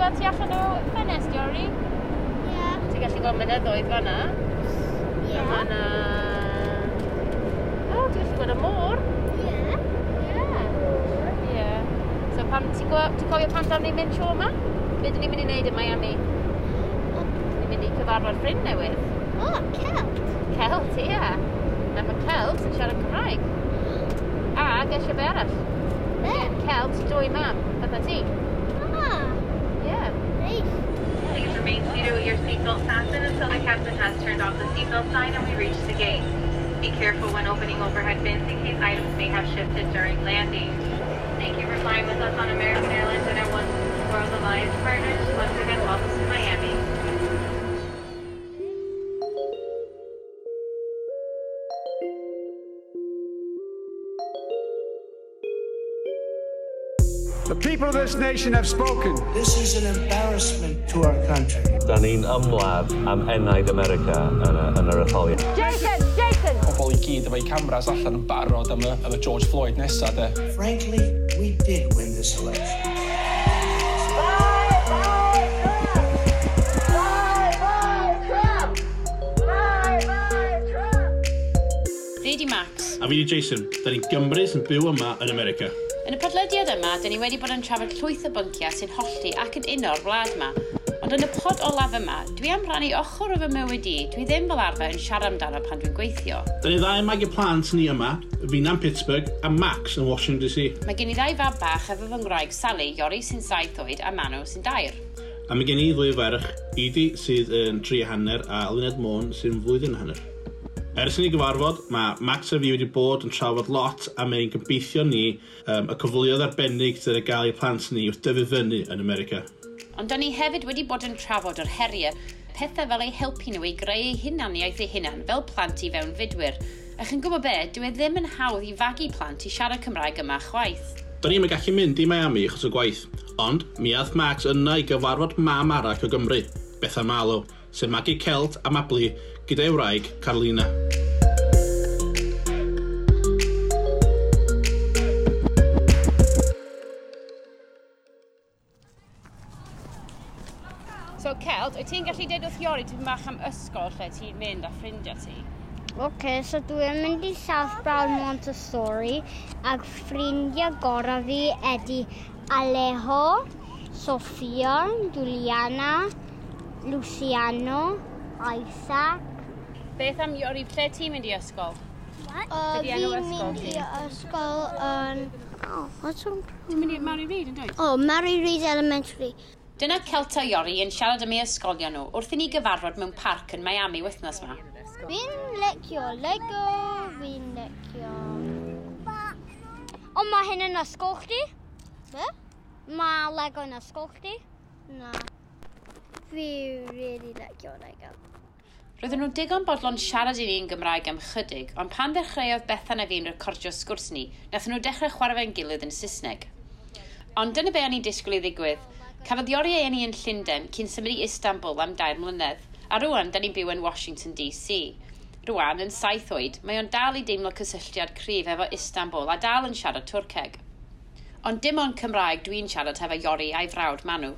gweld tu allan o ffenest, Iori? Ie. Yeah. Ti'n gallu gweld mynyddoedd fan'na? Ie. A ma' 'na... O, ti'n gallu gweld y môr. Ie. Ie. Ie. So pam ti'n ti'n cofio pam dan ni'n mynd tro yma? Be dyn ni'n mynd i wneud yn Miami? Ni'n mynd i cyfarfod ffrind newydd. O, Celt. Celt, ie. A mae Celt yn siarad Cymraeg. A gesio be arall. Be? Celt, dwy mam, fatha ti. Ah, Ie. neis. Please remain seated with your seatbelt fastened until the captain has turned off the seatbelt sign and we reach the gate. Be careful when opening overhead bins in case items may have shifted during landing. Thank you for flying with us on American Airlines and our One World Alliance partners. Once again, welcome to Miami. The people of this nation have spoken. This is an embarrassment to our country. Da ni'n ymladd am enaid America yn, y, yn yr etholiad. Jason! Jason! Pobl i gyd efo'u cameras allan yn barod am y, am y George Floyd nesa, de. Frankly, we did win this election. Fi di Max. A fi di Jason, da ni'n Gymru sy'n byw yma yn America. Yn y podlediad yma, dyn ni wedi bod yn trafod llwyth o bynciau sy'n hollti ac yn uno'r wlad yma. Ond yn y pod olaf yma, dwi am rannu ochr o fy mywyd i, dwi ddim fel arfer yn siarad amdano pan dwi'n gweithio. Da ni ddau yn magu plant ni yma, fi'na'n Pittsburgh a Max yn Washington DC. Mae gen i ddau fab bach efo fy ngwraig Sally, Iori sy'n 7 oed a Manw sy'n 2. A mae gen i ddwy ferch, Edie sydd yn 3 hanner a Luned Môn sy'n flwyddyn a hanner. Ers i ni gyfarfod, mae Max a fi wedi bod yn trafod lot am ein gobeithio ni y cyfleoedd arbennig sydd ar gael i plant ni wrth dyfu fyny yn America. Ond da ni hefyd wedi bod yn trafod yr heriau, pethau fel eu helpu nhw i greu eu hunaniaeth eu hunan fel plant i fewnfudwyr. A chi'n gwybod be, dyw e ddim yn hawdd i fagu plant i siarad Cymraeg yma chwaith. Da ni'n gallu mynd i Miami achos o gwaith, ond mi aeth Max yna i gyfarfod mam arall o Gymru, Bethan Marlow, sy'n magu Celt a Mabli gyda'i wraig Carolina. So Celt, wyt ti'n gallu deud wrth Iori tipyn bach am ysgol lle ti'n mynd a ffrindiau ti? OK, so dwi'n mynd i South Broward Montessori ac ffrindiau gorau fi ydy Alejo, Sofia, Juliana, Luciano, Isaac. Beth am Iori, lle ti'n mynd i ysgol? What? Be 'di enw Fi'n ysgol mynd ti? i ysgol yn... Oh, what's on? Ti'n mynd i Mary Reid yn dweud? Oh, Mary Reid Elementary. Dyna Celt a Iori yn siarad am ei ysgolion nhw wrth i ni gyfarfod mewn parc yn Miami wythnos yma. Fi'n licio Lego, fi'n licio... O, mae hyn yn ysgol chdi? Be? Mae Lego yn ysgol chdi? Na. Fi really licio Lego. Roedden nhw digon bodlon siarad i ni yn Gymraeg am chydig, ond pan ddechreuodd Bethan a fi'n recordio sgwrs ni, nathon nhw dechrau chwarae fe'n gilydd yn Saesneg. Ond dyna be o'n i'n disgwyl i ddigwydd. Cafodd Iori ei eni yn Llundain cyn symud i Istanbul am 3 mlynedd, a rwan da ni'n byw yn Washington DC. Rwan, yn 7 oed, mae o'n dal i deimlo cysylltiad cryf efo Istanbul a dal yn siarad Twrceg. Ond dim ond Cymraeg dwi'n siarad hefo Iori a'i frawd Manw.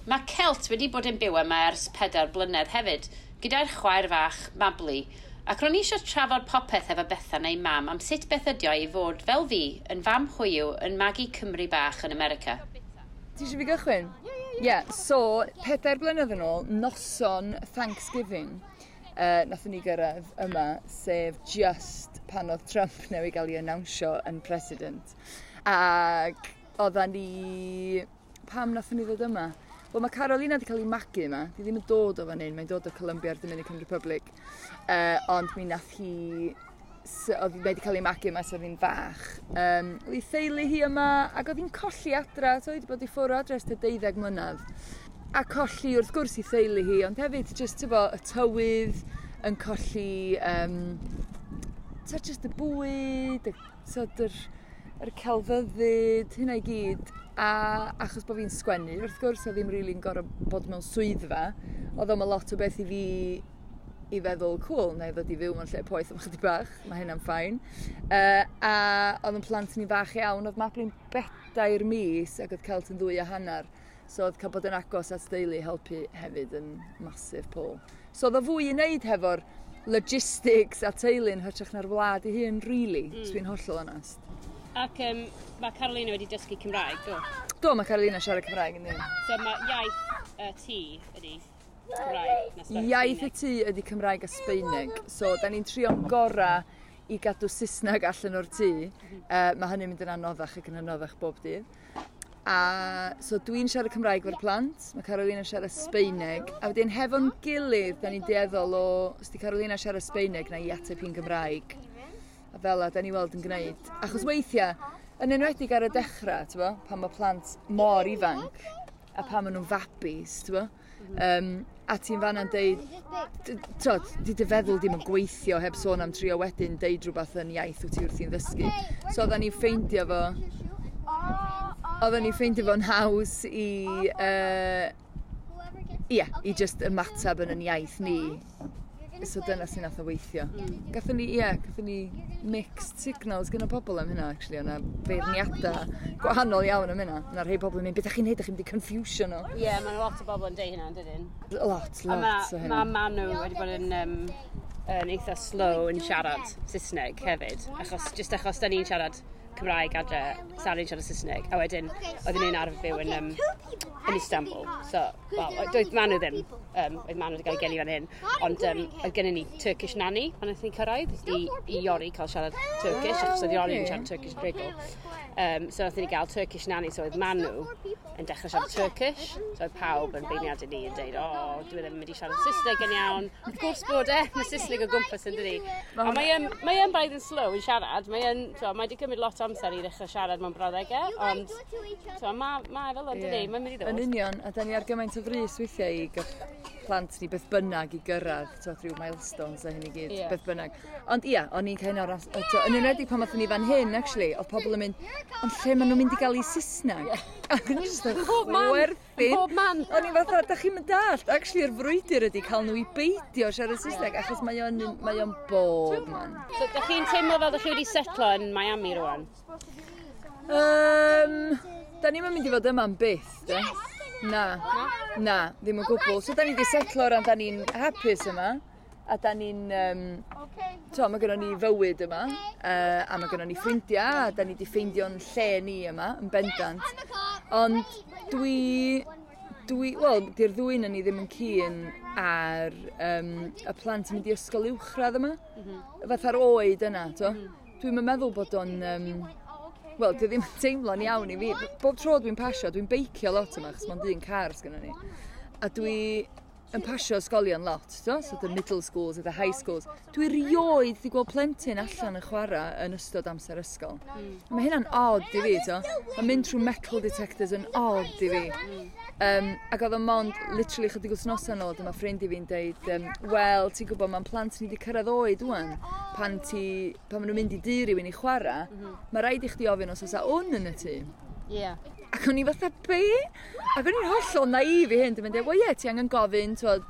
Mae Celt wedi bod yn byw yma ers 4 blynedd hefyd, gyda'r chwaer fach Mabli, ac ro'n i eisiau trafod popeth efo Bethan a'i mam am sut beth ydi o i fod, fel fi, yn fam hoyw yn magu Cymru bach yn America. Ti eisiau fi gychwyn? Ie, yeah, so, 4 blynedd yn ôl, noson Thanksgiving, nathon ni gyrraedd yma, sef just pan oedd Trump newydd gael ei annawnsio yn president. Ac oeddan ni... Pam nathon ni ddod yma? Wel, mae Carolina wedi cael ei magu yma. Di ddim yn dod o fan hyn, mae'n dod o Colombia a'r Dominican Republic. Ond mi nath hi oedd hi wedi cael ei magu yma ers oedd hi'n fach. Oedd ei theulu hi yma, ac oedd hi'n colli adra, so oedd hi wedi bod i ffwrdd o adra ers tua 12 mlynedd. A colli wrth gwrs i theulu hi, ond hefyd just, tybo, y tywydd yn colli, so just y bwyd, y, tyd, yr celfyddyd, hynna i gyd. A achos bod fi'n sgwennu, wrth gwrs, oedd ddim really'n gorfod bod mewn swyddfa, oedd o'm lot o beth i fi i feddwl, cool, na i ddod i fyw mewn lle poeth am chydig bach, mae hynna'n fine. A oedd yn plant ni fach iawn, oedd Mabli'n 4 mis ac oedd Celt yn 2.5. So oedd cael bod yn agos at deulu helpu hefyd yn massive pull. So oedd o fwy i wneud hefo'r logistics a teulu'n hytrach na'r wlad ei hun, really, os dwi'n hollol onest. Ac mae Carolina wedi dysgu Cymraeg, do? Do, mae Carolina siarad Cymraeg yn ddim. So mae iaith y tŷ ydy Cymraeg na Iaith y tŷ ydy Cymraeg a Sbaeneg. So, da ni'n trio'n gorau i gadw Saesneg allan o'r tŷ. Mae hynny'n mynd yn anoddach ac yn anoddach bob dydd. A so dwi'n siarad Cymraeg efo'r plant, mae Carolina siarad Sbaeneg, a wedyn hefo'n gilydd, da ni'n dueddol o, os di Carolina siarad Sbaeneg, na i ateb hi'n Gymraeg. A fel 'a, da ni weld yn gwneud. Achos weithiau, yn enwedig ar y dechrau, ti'n bo, pan mae plant mor ifanc, a pan maen nhw'n fabis, ti'n bo, a ti'n fanna'n deud, t'od, di dy feddwl ddim yn gweithio heb sôn am trio wedyn deud rhywbeth yn iaith wyt ti wrthi'n ddysgu. So oedden ni'n ffeindio fo'n haws i, ia, i just ymateb yn yn iaith ni. So dyna sy'n nath o weithio. Gathon ni mixed signals gyda pobl am hynna, actually. O'na feirniadau gwahanol iawn am hynna. O'na rhai pobl yn mynd, "Beth ydych chi'n neud, ydych chi'n mynd i confusio nhw?" Ie, yeah, mae'n lot o bobl yn deud hynna, yn dydyn? Lot, A lot o mae hynna. Manu wedi bod yn eitha slow yn siarad Saesneg hefyd. Achos, just achos da ni'n siarad Cymraeg adre, Sari'n siarad Saesneg. A wedyn, oedden ni'n arfer byw yn Istanbul. So, wel, doedd Manu ddim. Oedd Manu wedi cael ei geni fan hyn. Ond oedd gennym ni Turkish nanny pan wnaethon ni cyrraedd i Iori cael siarad Turkish, achos oedd Iori yn siarad Turkish rhugl. So wnaethon ni gael Turkish nanny, so oedd Manu yn dechrau siarad Turkish. So oedd pawb yn beirniadu ni yn deud, "O, oh, dwi ddim yn mynd i siarad Saesneg yn iawn." Wrth gwrs bod e, mae Saesneg o gwmpas yn dydi. A mae e'n braidd yn slow yn siarad. So, mae wedi cymryd lot o amser i ddechrau siarad mewn brawddegau, ond so, mae fel o'n dydi, mae'n mynd i Yn ddod. union, a da ni ar gymaint o frys weithiau i gael plant ni beth bynnag i gyrraedd, t'wod, rhyw milestones a hyn i gyd, beth bynnag. Ond ia, o'n i'n cael o'r... Yn enwedig pan oedden ni fan hyn, actually, oedd pobl yn mynd, "Ond lle maen nhw'n mynd i gael eu Saesneg?" Ac o'n i jyst yn Bob man, chwerthin. bob man. O'n i fatha, "Da chi'n mynd dallt, actually, yr frwydr ydy cael nhw i beidio siarad Saesneg, achos mae o'n bob man. So, da chi'n teimlo fel da chi wedi setlo yn Miami rwan? Da ni'n mynd i fod yma am byth, de? Na. Na, ddim o gwbl. So da ni wedi setlo ran, da ni'n hapus yma. A da ni'n... To, mae gynnon ni fywyd yma, a mae gynnon ni ffrindiau, a da ni wedi ffeindio'n lle ni yma, yn bendant. Ond wel, di'r ddwy na ni ddim yn keen ar y plant yn mynd i ysgol uwchradd yma. Fatha'r oed yna, to. Dwi'n meddwl bod o'n... Wel, di ddim yn teimlo'n iawn i fi. Bob tro dwi'n pasio, dwi'n beicio lot yma, achos mae'n un car sgynnon ni. A dwi yn pasio ysgolion lot, to? So the middle schools a the high schools. Dwi rioed di gweld plentyn allan yn chwarae yn ystod amser ysgol. Mae hynna'n odd i fi, to. Mae mynd trwy metal detectors yn odd i fi. Ac oedd o mond, literally chydig wythnosau nôl, dyma ffrind i fi'n deud, "Wel, ti'n gwybod, mae'n plant ni wedi cyrraedd oed ŵan, pan maen nhw'n mynd i dŷ rhywun i chwarae, mae rhaid i chdi ofyn os oes wn yn y tŷ." Ac o'n i fatha, "Be?" Ac o'n i'n hollol naif i hyn. Dwi'n mynd, "Wel ie, ti angen gofyn, twod."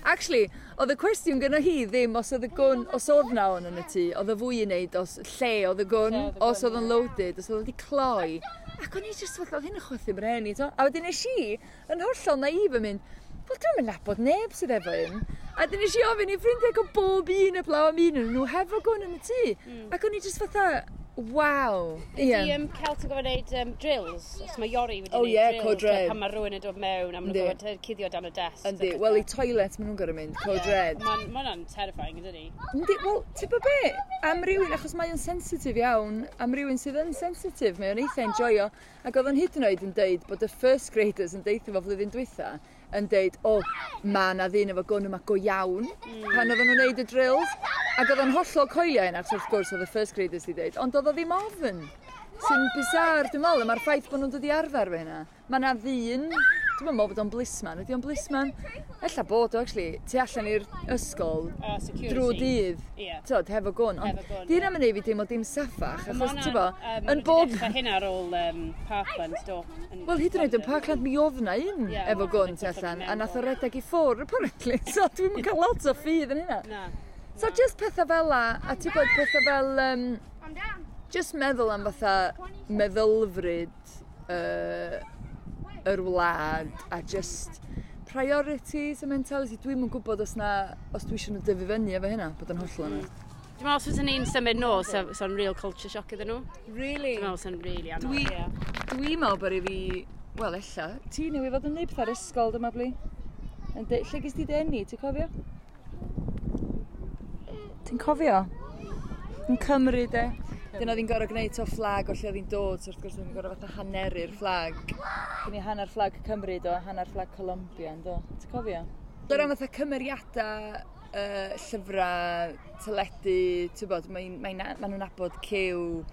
Actually, oedd y cwestiwn gyda hi ddim os oedd y gwn, os oedd na wn yn y tŷ, oedd y fwy i wneud os lle oedd y gwn, Lle oedd y os gwn, oedd yn loaded, os oedd wedi cloi. Ac o'n i just fatha, oedd hyn yn chwythu mren i, to. A wedyn nes i, yn hollol naif yn mynd, "Wel, dwi'n mynd nabod neb sydd efo un." A wedyn nes i ofyn i ffrindiau o bob un heblaw am un yn nhw hefo gwn yn y tŷ. Ac o'n i just fatha, "Waw." Ydy Celt yn gorfod gwneud drills? Os mae Iori wedi Oh, gwneud ie, drills, code red. pan mae rhywun yn dod mewn a maen nhw'n gorfod cuddio dan y desk. Yndi, wel i toilet maen nhw'n gorfod mynd, code red. Mae'n ma hwnna'n terrifying, ydydi? Yndi, wel, ti'n bod be? Am rywun, achos mae o'n sensitif iawn, am rywun sydd yn sensitif, mae o'n eitha enjoyo. Ac oedd o'n hyd yn oed yn deud bod y first graders yn deithio fo flwyddyn dwytha, yn deud, "O, ma na ddyn efo gwn yma go iawn," pan oedden nhw'n neud y drills. Ac oedd o'n hollol coelio hyn, achos wrth gwrs oedd y first graders di deud, ond oedd o ddim ofn. Sy'n bizarre, dwi'n meddwl, a mae'r ffaith bod nhw'n dod i arfer efo hynna. Mae na ddyn, dwi'n meddwl bod o'n policeman, ydy o'n policeman? Ella bod o, actually, tu allan i'r ysgol Security. drwy dydd, tyd, hefo gwn. Ond Hefo gwn, di hynna'n mynd i fi deimlo dim saffach, achos, ti'n bo, yn bob... Dechrau hynna ar ôl Parkland, do. Wel, hyd yn oed yn Parkland mi oedd na un Ie, efo ma' gwn hwnna'n tu allan, mewn a nath o redeg i ffwrdd, apparently. So dwi'n cael lot o ffydd yn hynna. Na. So just pethau fel la, a ti'n bod pethau fel... Just meddwl am fatha meddylfryd yr wlad a just priorities a mentality. Dwi'm yn gwybod os dwi eisiau nhw dyfu fyny efo hynna, bod yn hollol yna. Dwi'n meddwl os fysa ni'n symud nôl, so'n real culture shock iddyn nhw. Really? Dwi'n meddwl so'n really anodd, ie. Dwi'n meddwl bod i fi, wel ella, ti newydd fod yn neud pethau ar ysgol dyma bli. Lle ges ti dy eni, ti'n cofio? Ti'n cofio? Yn Cymru, de. Dyna oedd hi'n gorfod gwneud o fflag o lle oedd hi'n dod, so wrth gwrs oedd hi'n gorfod fatha haneru'r fflag. Gen i hanner fflag Cymru, do, hanner fflag Colombia, do. Ti'n cofio? Dyna fatha cymeriadau, llyfrau, teledu, ti'n bod, ma nhw'n nabod Cyw,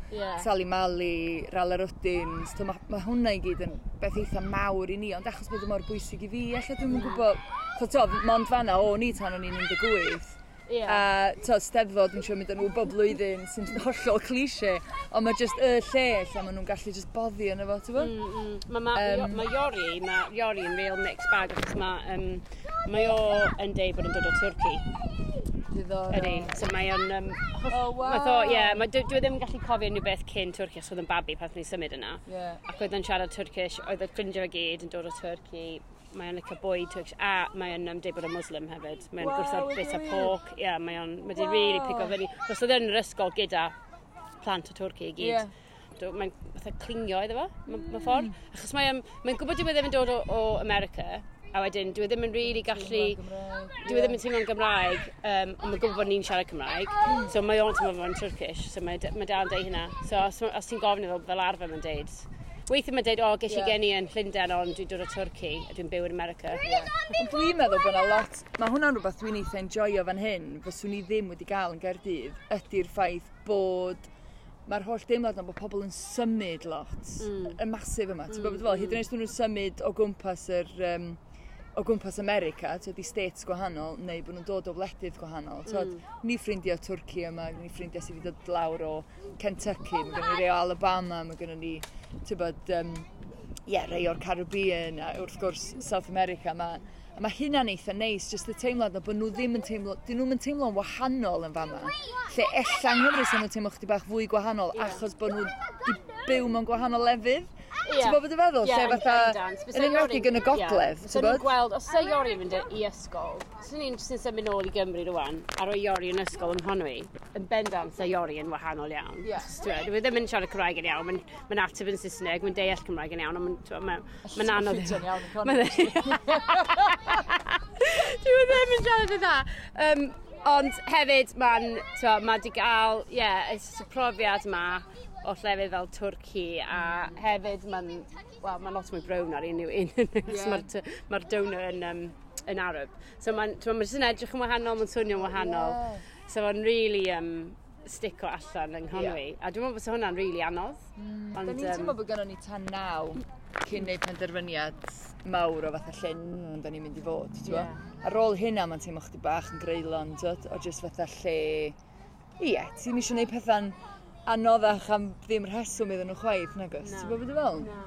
Sally Mally, Rala Rwdins, mae hwnna i gyd yn beth eitha mawr i ni, ond achos bod o mor bwysig i fi, ella dwi'm yn gwybod, so, mond fanna o'n i tan o'n i'n 18. Yeah. A to, Steddfod, dwi'n siŵr mynd â nhw bob blwyddyn, sy'n hollol cliché, ond mae just y lle lle maen nhw'n gallu just boddi yna fo, ti'n bod? Mae Iori, mae Iori yn real mixed bag, achos mae o yn deud bod yn dod o Twrci. Diddorol. Ydy, so mae o'n... oh, wow. Ie, dwi ddim yn gallu cofio unrhyw beth cyn Twrci, achos oedd yn babi pan ni'n symud yna. Yeah. Ac oedd yn siarad Turkish, oedd y ffrindiau fe gyd yn dod o Twrci. Mae o'n licio bwyd Turkish, a mae o'n deud bod o'n Muslim hefyd. Mae o'n gwrthod bit o pork. Ie, yeah, mae o'n, mae di really pigo fyny. Os oedd yn yr ysgol gyda plant o Twrci i gyd. Yeah. Mae'n fatha clingio iddo fo, mae ffordd. Achos mae'n gwybod dyw e ddim yn dod o America, a wedyn dyw e ddim yn really gallu... Dyw e ddim yn teimlo'n Gymraeg, ond mae'n gwybod bod ni'n siarad Cymraeg. So mae o'n teimlo fo'n Turkish, so mae dal yn deud hynna. So os ti'n gofyn iddo fel arfer mae'n deud. Weithiau mae'n deud, o, ges i geni yn Llundain, ond dwi'n dod o Twrci, a dwi'n byw yn America. Yeah. Ond dwi'n meddwl bod yna lot, mae hwnna'n rhywbeth dwi'n eitha enjoyo fan hyn, fyswn i ddim wedi gael yn Gaerdydd, ydy'r ffaith bod mae'r holl deimlad yna bod pobl yn symud lot, y masif yma. Ti'n gwybod fel, hyd yn oed os nhw'n symud o gwmpas o gwmpas America, ti'n di states gwahanol, neu bod nhw'n dod o wledydd gwahanol. Mm. Ni ffrindiau Twrci yma, ni ffrindiau sydd wedi dod lawr o Kentucky, mae gennym ni rei o Alabama, mae gennym ni, ti'n bod, rei o'r Caribbean, a wrth gwrs South America. A mae hynna'n eitha neis, jyst y teimlad na bod nhw ddim yn teimlo, dyn nhw'n teimlo'n wahanol yn fama. Lle ella yng Nghymru sy'n nhw'n teimlo chdi bach fwy gwahanol, achos bod nhw wedi byw mewn gwahanol lefydd. Ti'n gwybod beth dwi'n feddwl? Yeah, lle fatha, yn enwedig yn y gogledd, ti'n gwybod? Gweld, os yw Iori yn mynd i ysgol, os ni'n jyst yn symud nôl i Gymru rwan, a rhoi Iori yn ysgol yng Nghonwy, yn bendant sa Iori yn wahanol iawn. Yeah. Dwi ddim yn siarad Cymraeg yn iawn, mae'n ateb yn Saesneg, mae'n deall Cymraeg yn iawn, ond mae'n anodd. Mae'n iawn yn Conwy. Dwi ddim yn siarad yn dda. Ond hefyd, mae di gael, y profiad yma, o llefydd fel Twrci, a hefyd mae'n well, lot mwy brown ar unrhyw un. Yeah. Mae'r donor yn Arab. So mae'n jyst yn edrych yn wahanol, mae'n swnio'n wahanol. Yeah. So mae'n really stico allan yng Nghonwy. Yeah. A dwi'n meddwl bod hwnna'n really anodd. Ond, da ni'n teimlo bod gynnon ni tan 9 cyn neud penderfyniad mawr o fatha lle da ni'n mynd i fod. Yeah. Ar ôl hynna mae'n teimlo chdi bach yn greulon, o jyst fatha lle... Ie, ti'n eisiau neud pethau'n anoddach am ddim rheswm iddyn nhw chwaith, nagos? Ti'n gwybod beth dwi'n fel? Na.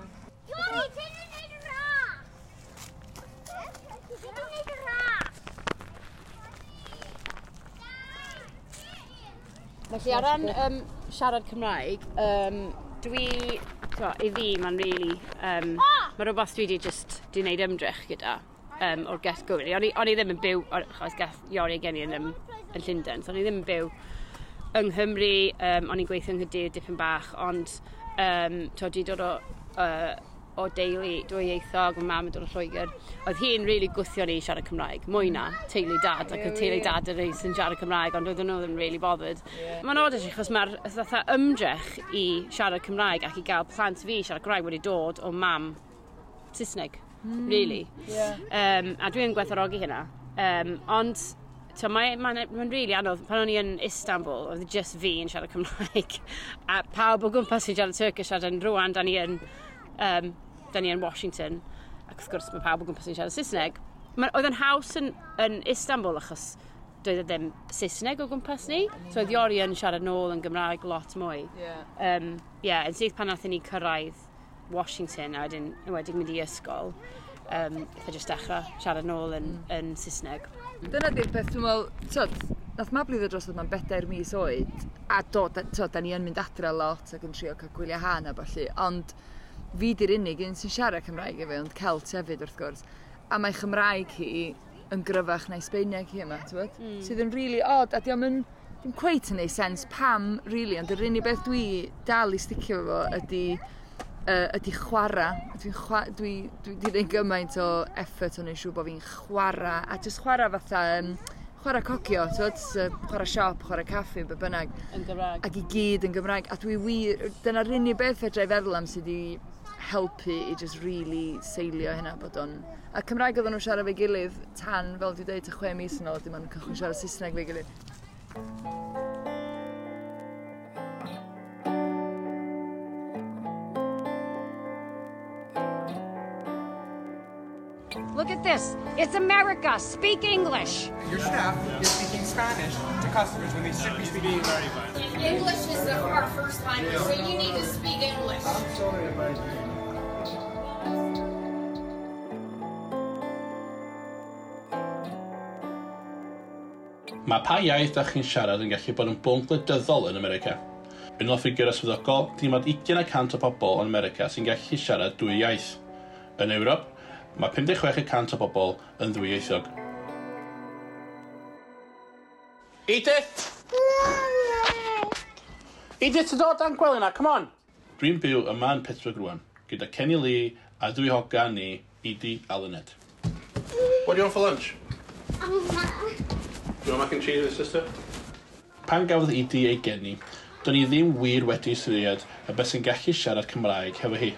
Iori, ti'n gwneud y ras! Ti'n gwneud y ras! Felly, ar ran siarad Cymraeg, i fi, mae'n really... Mae rhywbeth dwi wedi just di wneud ymdrech gyda o'r get-go. O'n i ddim yn byw, achos gath Iori gen i yn Llundain, so o'n i ddim yn byw yng Nghymru, o'n i'n gweithio yng Nghaerdydd dipyn bach, ond dwi'n dod o deulu dwyieithog, mae mam yn dod o Lloegr. Oedd hi'n really gwthio ni i siarad Cymraeg, mwy na teulu dad, ac oedd teulu dad yn rei sy'n siarad Cymraeg, ond oedden nhw ddim really bothered. Yeah. Mae'n od achos mae'r fatha ymdrech i siarad Cymraeg ac i gael plant fi siarad Cymraeg wedi dod o mam Saesneg, really. Yeah. A dwi'n gwerthfawrogi hynna. Ond so mae'n really anodd. Pan o'n i yn Istanbul, oedd just fi yn siarad Cymraeg. A pawb o gwmpas sy'n siarad Turkish, a rwan, da ni yn Washington. Ac wrth gwrs mae pawb o gwmpas sy'n siarad Saesneg. Oedd yn haws yn Istanbul achos doedd e ddim Saesneg o gwmpas ni. So oedd Iori yn siarad nôl yn Gymraeg lot mwy. Yeah. Yn syth pan nathon ni cyrraedd Washington a wedyn mynd i ysgol, eitha jyst dechrau siarad nôl yn Saesneg. Dyna di'r peth, dwi'n meddwl, tyd, nath Mabli ddod drosodd ma'n 4 mis oed, a do, da ni yn mynd adre lot ac yn trio cael gwyliau hân a ballu, ond Fi di'r unig un sy'n siarad Cymraeg efo, ond Celt hefyd wrth gwrs. A mae Chymraeg hi yn gryfach na'i Sbeineg hi yma, ti'n bod? Sydd yn really odd, a diolch yn dim cweit yn neud sens pam, really, ond yr unig beth dwi dal i sticio efo ydy chwarae. Dwi 'di neud gymaint o effort o'n neud siŵr bod fi'n chwarae, a jyst chwarae fatha, chwarae cocio, ti'n chwarae siop, chwarae caffi, be bynnag. Yn Gymraeg. Ac i gyd yn Gymraeg. A dwi wir, dyna'r unig beth fedra i feddwl am sydd wedi helpu i just really seilio hynna bod o'n... A Cymraeg oedden nhw'n siarad efo'i gilydd tan, fel dwi'n dweud, 6 mis yn ôl, dim ond cychwyn siarad Saesneg efo'i gilydd. Look at this. It's America. Speak English. Your staff is speaking Spanish to customers when they should be speaking English. English is our first language, so you need to speak English. I'm sorry about that. Mae pa iaith da chi'n siarad yn gallu bod yn bwnc gwleidyddol yn America. Yn ôl ffigurau swyddogol, dim ond 20% o bobl yn America sy'n gallu siarad dwy iaith. Yn Ewrop, mae 56% o bobl yn ddwyieithog. Edith! Edith, ti'n dod dan gwely na, come on! Dwi'n byw yma yn Pittsburgh rwan, gyda Kenny Lee a dwy hogan ni, Edie a Lynette. What do you want for lunch? Do you want mac and cheese with sister? Pan gafodd Edie ei geni, do'n i ddim wir wedi ystyried y beth sy'n gallu siarad Cymraeg hefo hi.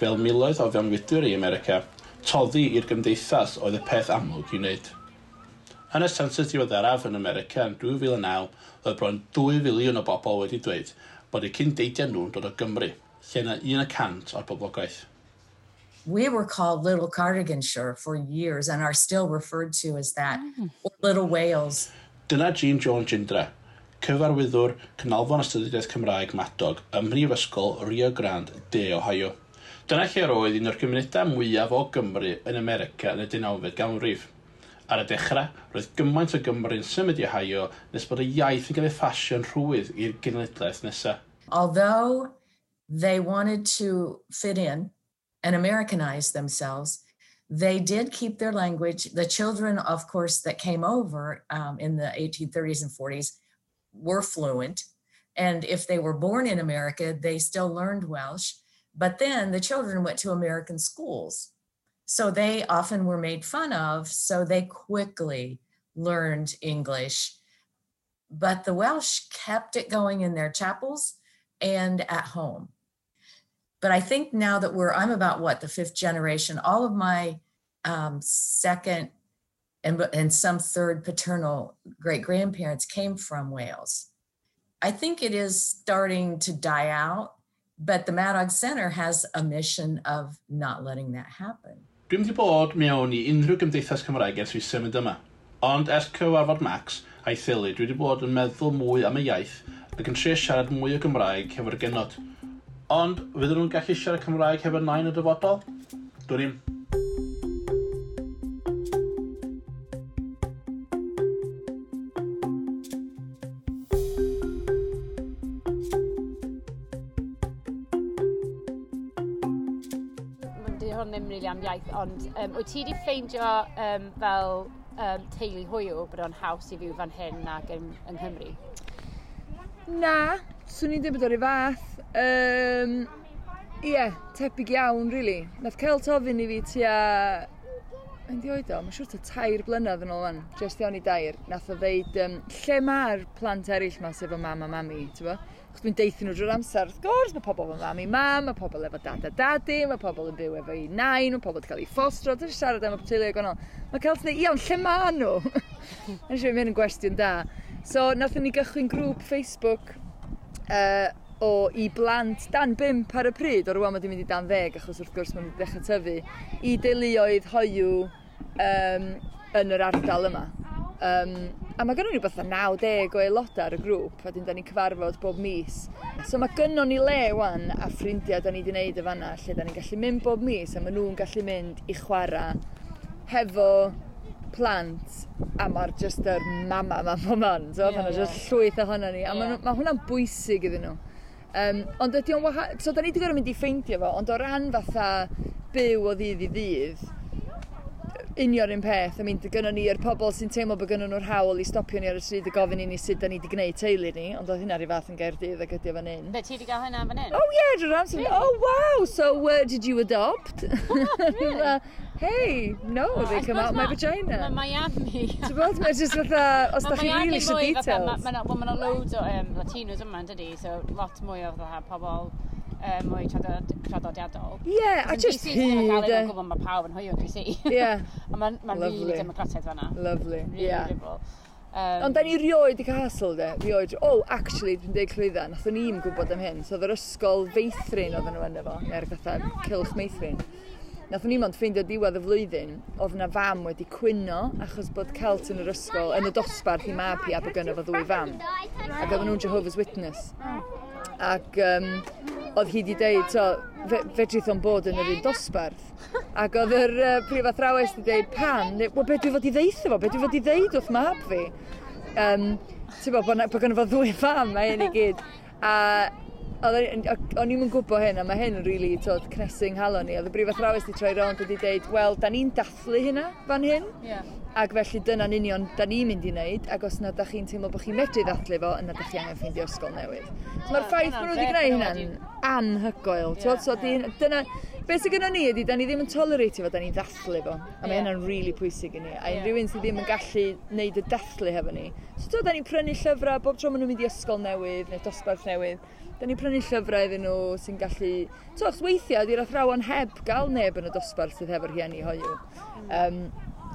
Fel miloedd o fewnfudwyr i America, toddi i'r gymdeithas oedd y peth amlwg i wneud. Yn y census diweddaraf yn America yn 2009, oedd bron 2 filiwn o bobl wedi dweud bod eu cyndeidiau nhw'n dod o Gymru, lle na 1% o'r boblogaeth. We were called Little Cardiganshire for years and are still referred to as that, or Little Wales. Dyna Jean Jones Jindra, cyfarwyddwr Canolfan Astudiaeth Cymraeg Madog ym Mhrifysgol Rio Grande de Ohio. Dyna lle roedd un o'r gymunedau mwyaf o Gymru yn America yn y 19fed ganrif. Ar y dechrau, roedd gymaint o Gymru'n symud i Ohio nes bod y iaith yn cael ei phasio'n rhwydd i'r genedlaeth nesaf. Although they wanted to fit in and Americanize themselves, they did keep their language. The children, of course, that came over in the 1830s and 40s were fluent. And if they were born in America, they still learned Welsh. But then the children went to American schools. So they often were made fun of, so they quickly learned English. But the Welsh kept it going in their chapels and at home. But I think now that I'm about the fifth generation, all of my second and some third paternal great-grandparents came from Wales. I think it is starting to die out, but the Madog Center has a mission of not letting that happen. Dwi'm wedi bod mewn i unrhyw gymdeithas Cymraeg ers fi symud yma. Ond ers cyfarfod Max a'i theulu, dwi wedi bod yn meddwl mwy am y iaith ac yn trio siarad mwy o Gymraeg hefo'r genod. Ond fydden nhw'n gallu siarad Cymraeg hefo nain y dyfodol? Dwn i'm. Di hwn ddim rili am iaith, ond wyt ti wedi ffeindio fel teulu hoyw bod o'n haws i fyw fan hyn nag yng Nghymru? Na, swn i'n dweud bod o'r un fath. Ie, tebyg iawn, really. Nath Celt ofyn i fi tua... Yn di oed o, mae'n siŵr tua 3 blynedd yn ôl fan, jyst iawn i 3. Nath o ddeud, lle mae'r plant eraill ma sef o mam a mami, ti'n bo? Chos dwi'n deithio nhw drwy'r amser, wrth gwrs, mae pobl efo mami mam, mae pobl efo dad a dadi, mae pobl yn byw efo ei nain, mae pobl wedi cael ei ffostro, dwi'n siarad am y teulu gwahanol. Mae Celt yn dweud, iawn, lle ma nhw? Nes i mynd yn gwestiwn da. So, nathon ni gychwyn grŵp Facebook o i blant dan 5 ar y pryd, o rwan mae wedi mynd i dan 10, achos wrth gwrs maen nhw wedi dechrau tyfu, i deuluoedd hoyw yn yr ardal yma. A mae gynnon ni rhywbeth 90 o aelodau ar y grŵp, a wedyn da ni'n cyfarfod bob mis. So mae gynnon ni le wan a ffrindiau da ni wedi wneud y fanna, lle da ni'n gallu mynd bob mis, a maen nhw'n gallu mynd i chwarae hefo plant, a mae'r just yr mama yma bob man, so yeah, mae yna just llwyth ohono ni, a mae hwnna'n bwysig iddyn nhw. Ond ydy o'n wahanol, so da ni wedi gorfod mynd i ffeindio fo, ond o ran fatha byw o ddydd i ddydd, union un peth. I mean, gynnon ni'r pobl sy'n teimlo bod gynnon nhw'r hawl i stopio ni ar y stryd a gofyn i ni sut da ni wedi gwneud teulu ni, ond oedd hynna rhyw fath yn Gaerdydd ac ydy o fan hyn. Be, ti wedi gael hynna fan hyn? Oh yeah, drwy'r amser. Really? Oh wow, so did you adopt? Really? Hey, no, Oh, they I come out suppose my vagina. Mae Miami. Ti'n bod, mae just fatha, os da chi really eisiau details. Mae yna loads o Latinos yma, yn dydi? So lot mwy o fatha pobl mwy traddodiadol. Yeah, a Yn just DC, ti'n hyd. cael ei gwybod mae pawb yn hoyw yn DC. Yeah. A mae'n ma really Lovely. democrataidd fanna. Lovely, Really yeah. liberal. Ond da ni rioed i cael hassle, de. Rioed. Oh, actually, dwi'n deud clwydda, nathon ni'm gwybod am hyn. So, oedd yr ysgol feithrin oedden nhw yno fo, neu'r fatha cylch meithrin. Nathon ni mond ffeindio diwedd y flwyddyn, oedd na fam wedi cwyno achos bod Celt yn yr ysgol, yn y dosbarth i mab hi a bod gynno fo ddwy fam. Ac oedden nhw'n Jehovah's Witness. Ac oedd hi wedi deud, so, fedrith o'n bod yn yr un dosbarth. Ac oedd yr prif athrawes wedi deud, pam? Neu, wel, be dwi fod i ddeutho fo? Be dwi fod i ddeud wrth mab fi? Ti'n bod, bod gynno fo ddwy fam, a hyn i gyd. A o'n i'm yn gwybod hyn, a mae hyn yn rili, really, cnesu yng nghalon ni. Oedd y brif athrawes wedi troi rownd a wedi deud, wel, da ni'n dathlu hynna fan hyn. Ac felly dyna'n union da ni'n mynd i wneud, ac os na da chi'n teimlo bod chi'n medru ddathlu fo, yna da chi angen ffeindio ysgol newydd. So mae'r ffaith bod nhw wedi gwneud hynna'n anhygoel. T'wod? So dyna, beth sydd gynnon ni ydy, da ni ddim yn toleratio fo, da ni'n ddathlu fo. A mae hynna'n rili pwysig i ni. A unrhyw un sydd ddim yn gallu wneud y dathlu hefo ni. So t'wod, da ni'n prynu llyfrau bob tro maen nhw'n mynd i ysgol newydd neu dosbarth newydd. Da ni'n prynu llyfrau iddyn nhw sy'n gallu... T'wod, achos weithiau, di'r athrawon heb gael neb yn y dosbarth sydd hefo'r rhieni hoyw.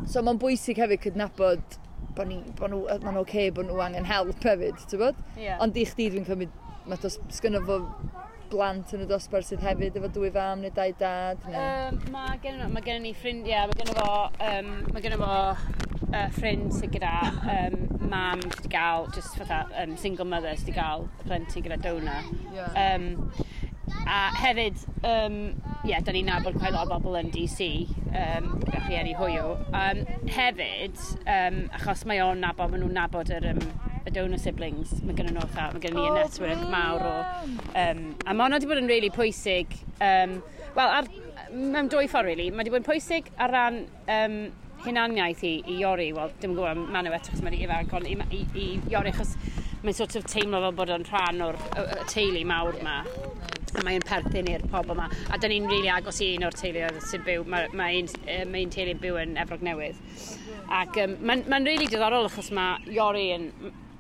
So mae'n bwysig hefyd cydnabod bod ni, bod nhw, mae'n oce bod nhw angen help hefyd, ti'n bod? Ond i chdi dwi'n cymryd, mae sgynno fo blant yn y dosbarth sydd hefyd efo dwy fam neu dau dad? Neu... Mae gen ni ffrindiau, mae gen fo ffrind sydd gyda mam sydd wedi gael, just fatha single mother sydd wedi gael plentyn gyda donor. A hefyd, yeah, da ni'n nabod quite lot o bobl yn DC, gyda rhieni hoyw. Hefyd, achos mae o'n nabod, maen nhw'n nabod y donor siblings, mae gen nhw fatha, mae gen ni y network mawr o... A mae hwnna wedi bod yn really pwysig, wel, mewn dwy ffordd, really. Mae wedi bod yn pwysig ar ran hunaniaeth i Iori, wel, dim yn gwybod am Manu eto, achos mae'n ifanc, ond i Iori, achos mae'n sort of teimlo fel bod o'n rhan o'r y teulu mawr yma. A mae'n perthyn i'r pobl yma. A da ni'n rili agos i un o'r teuluoedd sy'n byw, mae un teulu'n byw yn Efrog Newydd. Ac mae'n rili diddorol achos mae Iori yn...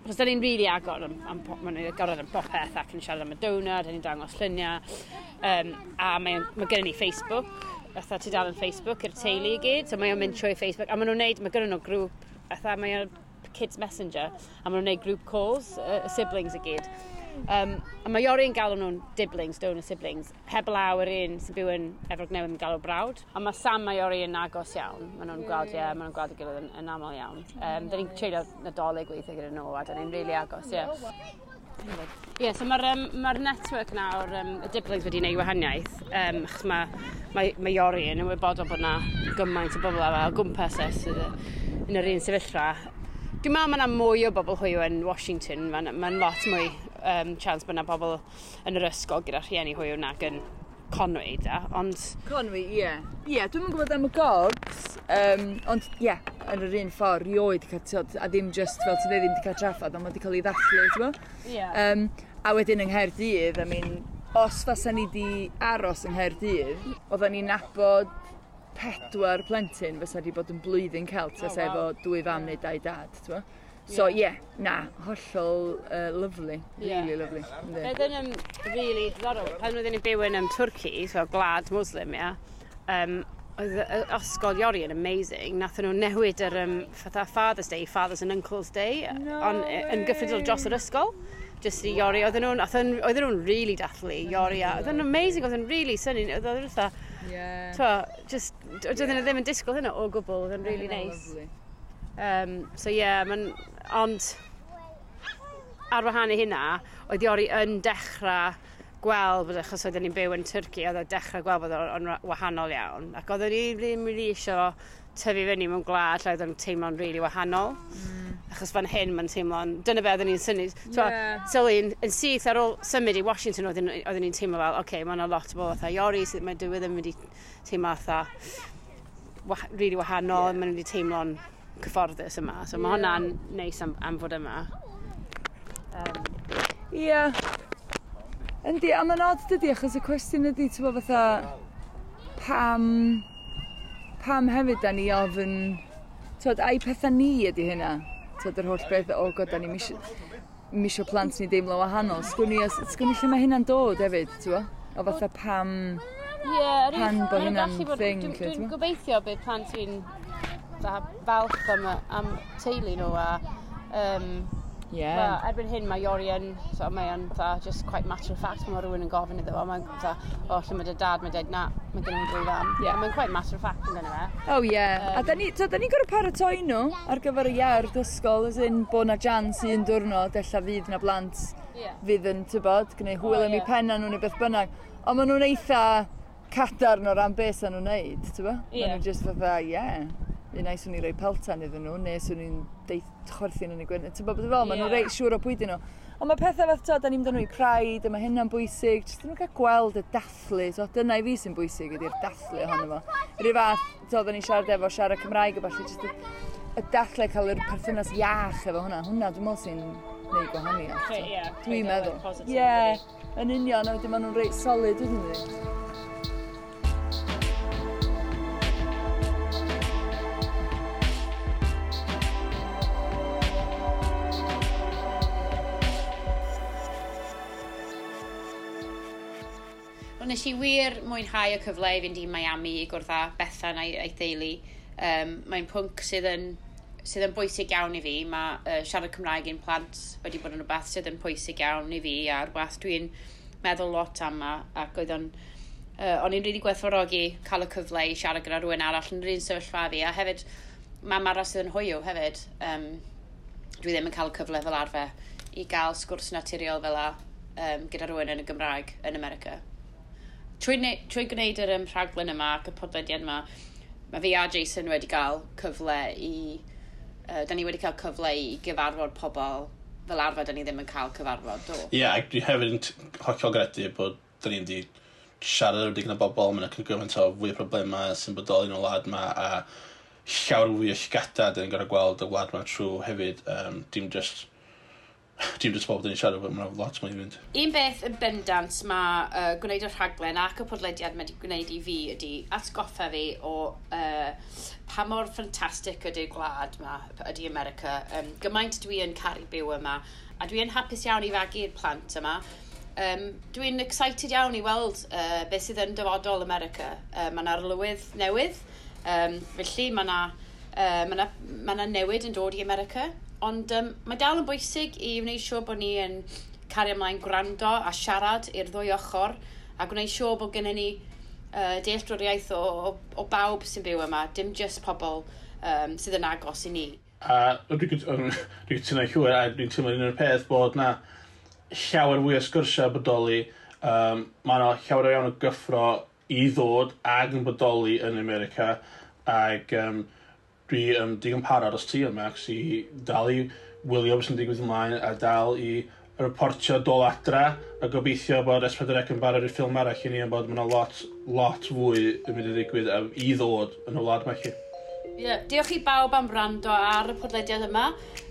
Achos da ni'n rili agor am, ma'n agored am bopeth ac yn siarad am y donor, da ni'n dangos lluniau. A mae gennym ni Facebook, fatha tudalen Facebook i'r teulu i gyd, so mae o'n mynd trwy Facebook. A maen nhw'n neud, mae gynnon nhw grŵp, fatha mae o'n Kids Messenger, a maen nhw'n neud group calls, y siblings i gyd. A mae Iori yn galw nhw'n diblings, donor siblings, heblaw yr un sy'n byw yn Efrog Newydd yn galw brawd. A mae Sam a Iori yn agos iawn. Maen nhw'n gweld, ie, maen nhw'n gweld ei gilydd yn aml iawn. Da ni'n treulio Nadolig weithiau gyda nhw, a da ni'n really agos, ie. Ie, so mae'r ma network nawr, y diblings wedi gwneud wahaniaeth, achos mae Iori yn ymwybodol bod na gymaint o bobl o gwmpas e sydd yn yr un sefyllfa. Dwi'n meddwl mae yna mwy o bobl hoyw yn Washington, mae'n ma lot mwy chance bod yna bobl yn yr ysgol gyda rhieni hoyw nag yn Conwy, da, ond... Conwy, ie. Ie, dwi'm yn gwybod am y gogs, ond ie, yn yr un ffordd, rioed cael, t'wod, a ddim just fel ti'n dweud, ddim wedi cael traffath, ond mae wedi cael ei ddathlu, ti'n gwbod? A wedyn yng Nghaerdydd, I mean, os fasa ni di aros yng Nghaerdydd, oedden ni'n nabod 4 plentyn fysa di bod yn blwyddyn Celt, fysa efo dwy fam neu dau dad, ti'n gwbod? So, ie, yeah, na, hollol lovely, really lovely. Yndi. Oedd yn really diddorol. Pan oedden ni'n byw yn Twrci, so gwlad Muslim, ia, oedd ysgol Iori yn amazing. Nathon nhw newid yr fatha Father's Day, Fathers and Uncles Day, No on, yn gyffredinol dros yr ysgol. Just i Iori, oedden nhw'n really dathlu Iori, a oedd yn amazing, oedd yn really synnu, oedd o'n fatha, just, oedden nhw ddim yn disgwyl hynna o gwbl, oedd yn really nice. Lovely. So yeah, ond ar wahân i hynna, oedd Iori yn dechrau gweld bod, achos oedden ni'n byw yn Twrci, oedd o'n dechrau gweld bod o'n wahanol iawn. Ac oedden ni ddim really eisiau tyfu fyny mewn gwlad lle oedd o'n teimlo'n really wahanol. Achos fan hyn mae'n teimlo'n... Dyna be oedden ni'n synnu. So, sylwi, yn syth ar ôl symud i Washington, oedden ni'n teimlo fel, oce, okay, mae yna lot o bobl fatha Iori, sydd mae dyw e ddim wedi teimlo fatha really wahanol, maen nhw wedi teimlo'n cyfforddus yma. So mae hwnna'n neis am fod yma. Ie. Yndi, a mae'n odd dydi, achos y cwestiwn ydi, ti'n bod fatha, pam hefyd da ni ofyn, ti'n ai pethau ni ydi hynna? Ti'n yr holl beth, o god, da ni misio plant ni deimlo wahanol. Sgwn i lle mae hynna'n dod hefyd, ti'n bo? O fatha pam, pan bod hynna'n thing. Dwi'n gobeithio bydd plant fi'n falch am teulu nhw a Well, erbyn hyn mae Iori yn, so mae yn fatha, just quite matter of fact, mae rhywun yn gofyn iddo fo, mae'n fatha, o, lle mae dy dad, mae'n dweud, na, mae gen i'n dwy fam. Mae'n quite matter of fact yn dyna fe. Oh yeah, a da ni'n gorfod paratoi nhw ar gyfer y iard ysgol, as in bod na jans un diwrnod, ella fydd na blant fydd yn, tybod, gwneud hwyl am eu penna nhw neu beth bynnag. Ond maen nhw'n eitha cadarn o ran beth sy'n nhw'n neud, tybod? Maen nhw'n just fatha, un ai swn i'n rhoi peltan iddyn nhw, neu swn i'n chwerthin yn y gwyn. Ti'n bod fel, maen nhw'n reit siŵr o pwy dyn nhw. Ond mae pethau fath, da ni'n mynd â nhw i Pride, a mae hynna'n bwysig. Jyst nhw'n cael gweld y dathlu. So, dyna i fi sy'n bwysig ydy'r dathlu ohono fo. Rhyw fath, da ni'n siarad efo siarad Cymraeg a ballu, jyst y dathlu cael yr perthynas iach efo hwnna. Hwnna, dwi'n meddwl sy'n neud gwahaniaeth. Dwi'n meddwl. Ie, yn union, a wedyn maen nhw'n reit solid, wedyn nhw. Nes i wir mwynhau y cyfle i fynd i Miami i gwrdd â Bethan a'i theulu. Mae'n pwnc sydd yn bwysig iawn i fi. Mae siarad Cymraeg i'n plant wedi bod yn rhywbeth sydd yn pwysig iawn i fi a rhywbeth dwi'n meddwl lot am ac oedd o'n i'n rili gwerthfawrogi cael y cyfle i siarad gyda rhywun arall yn yr un sefyllfa fi a hefyd mam arall sydd yn hoyw hefyd. Dwi ddim yn cael y cyfle fel arfer i gael sgwrs naturiol fel a gyda rhywun yn y Gymraeg yn America. Trwy gwneud yr rhaglen yma ac y podlediad yma, mae fi a Jason wedi cael cyfle i... da ni wedi cael cyfle i gyfarfod pobl fel arfer da ni ddim yn cael cyfarfod, do? Ie, yeah, dwi hefyd yn hollol gredu bod da ni wedi siarad efo digon o bobl, mae'n cymaint o fwy o problemau sy'n bodoli yn y wlad yma a llawer fwy o llygada da ni'n gorfod gweld y wlad yma trwy hefyd. Dim just pobl dyn ni'n siarad efo, mae'n lot mwy i fynd. Un beth yn bendant mae gwneud y rhaglen ac y podlediad mae wedi gwneud i fi ydy atgoffa fi o pa mor ffantastig ydy'r gwlad yma, ydy America. Gymaint dwi yn caru byw yma a dwi yn hapus iawn i fagu'r plant yma. Dwi'n excited iawn i weld beth sydd yn dyfodol America. Mae yna arlywydd newydd, felly mae yna newid yn dod i America. Ond mae dal yn bwysig i wneud siŵr bod ni yn cario ymlaen gwrando a siarad i'r ddwy ochr a gwneud siŵr bod gennym ni dealltwriaeth o bawb sy'n byw yma, dim jyst pobl sydd yn agos i ni. A dwi'n cytuno llwyr a dwi'n teimlo un o'r peth bod na llawer fwy o sgyrsiau bodoli, mae yna llawer iawn o gyffro i ddod ag yn bodoli yn America ac dwi digon parod os ti yma, Max, i dal i wylio beth sy'n digwydd ymlaen a dal i reportio dol adra a gobeithio bod S4C yn barod i'r ffilm arall i ni yn bod mae yna lot fwy yn mynd i ddigwydd i ddod yn y wlad yma chi. Yeah. Diolch i bawb am wrando ar y podlediad yma.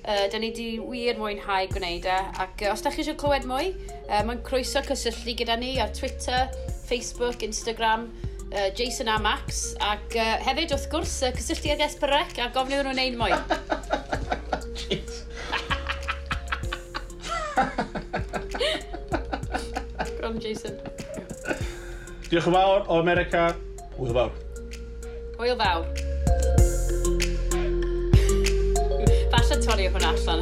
Da ni di wir mwynhau gwneud e. Ac os da chi eisiau clywed mwy, mae'n croeso cysylltu gyda ni ar Twitter, Facebook, Instagram, Jason a Max. Ac hefyd, wrth gwrs, cysylltu ag S4C a gofyn iddyn nhw wneud mwy. Jeez. Gron, Jason. Diolch yn fawr o America. Hwyl fawr. Hwyl fawr. Falle torri hwnna allan.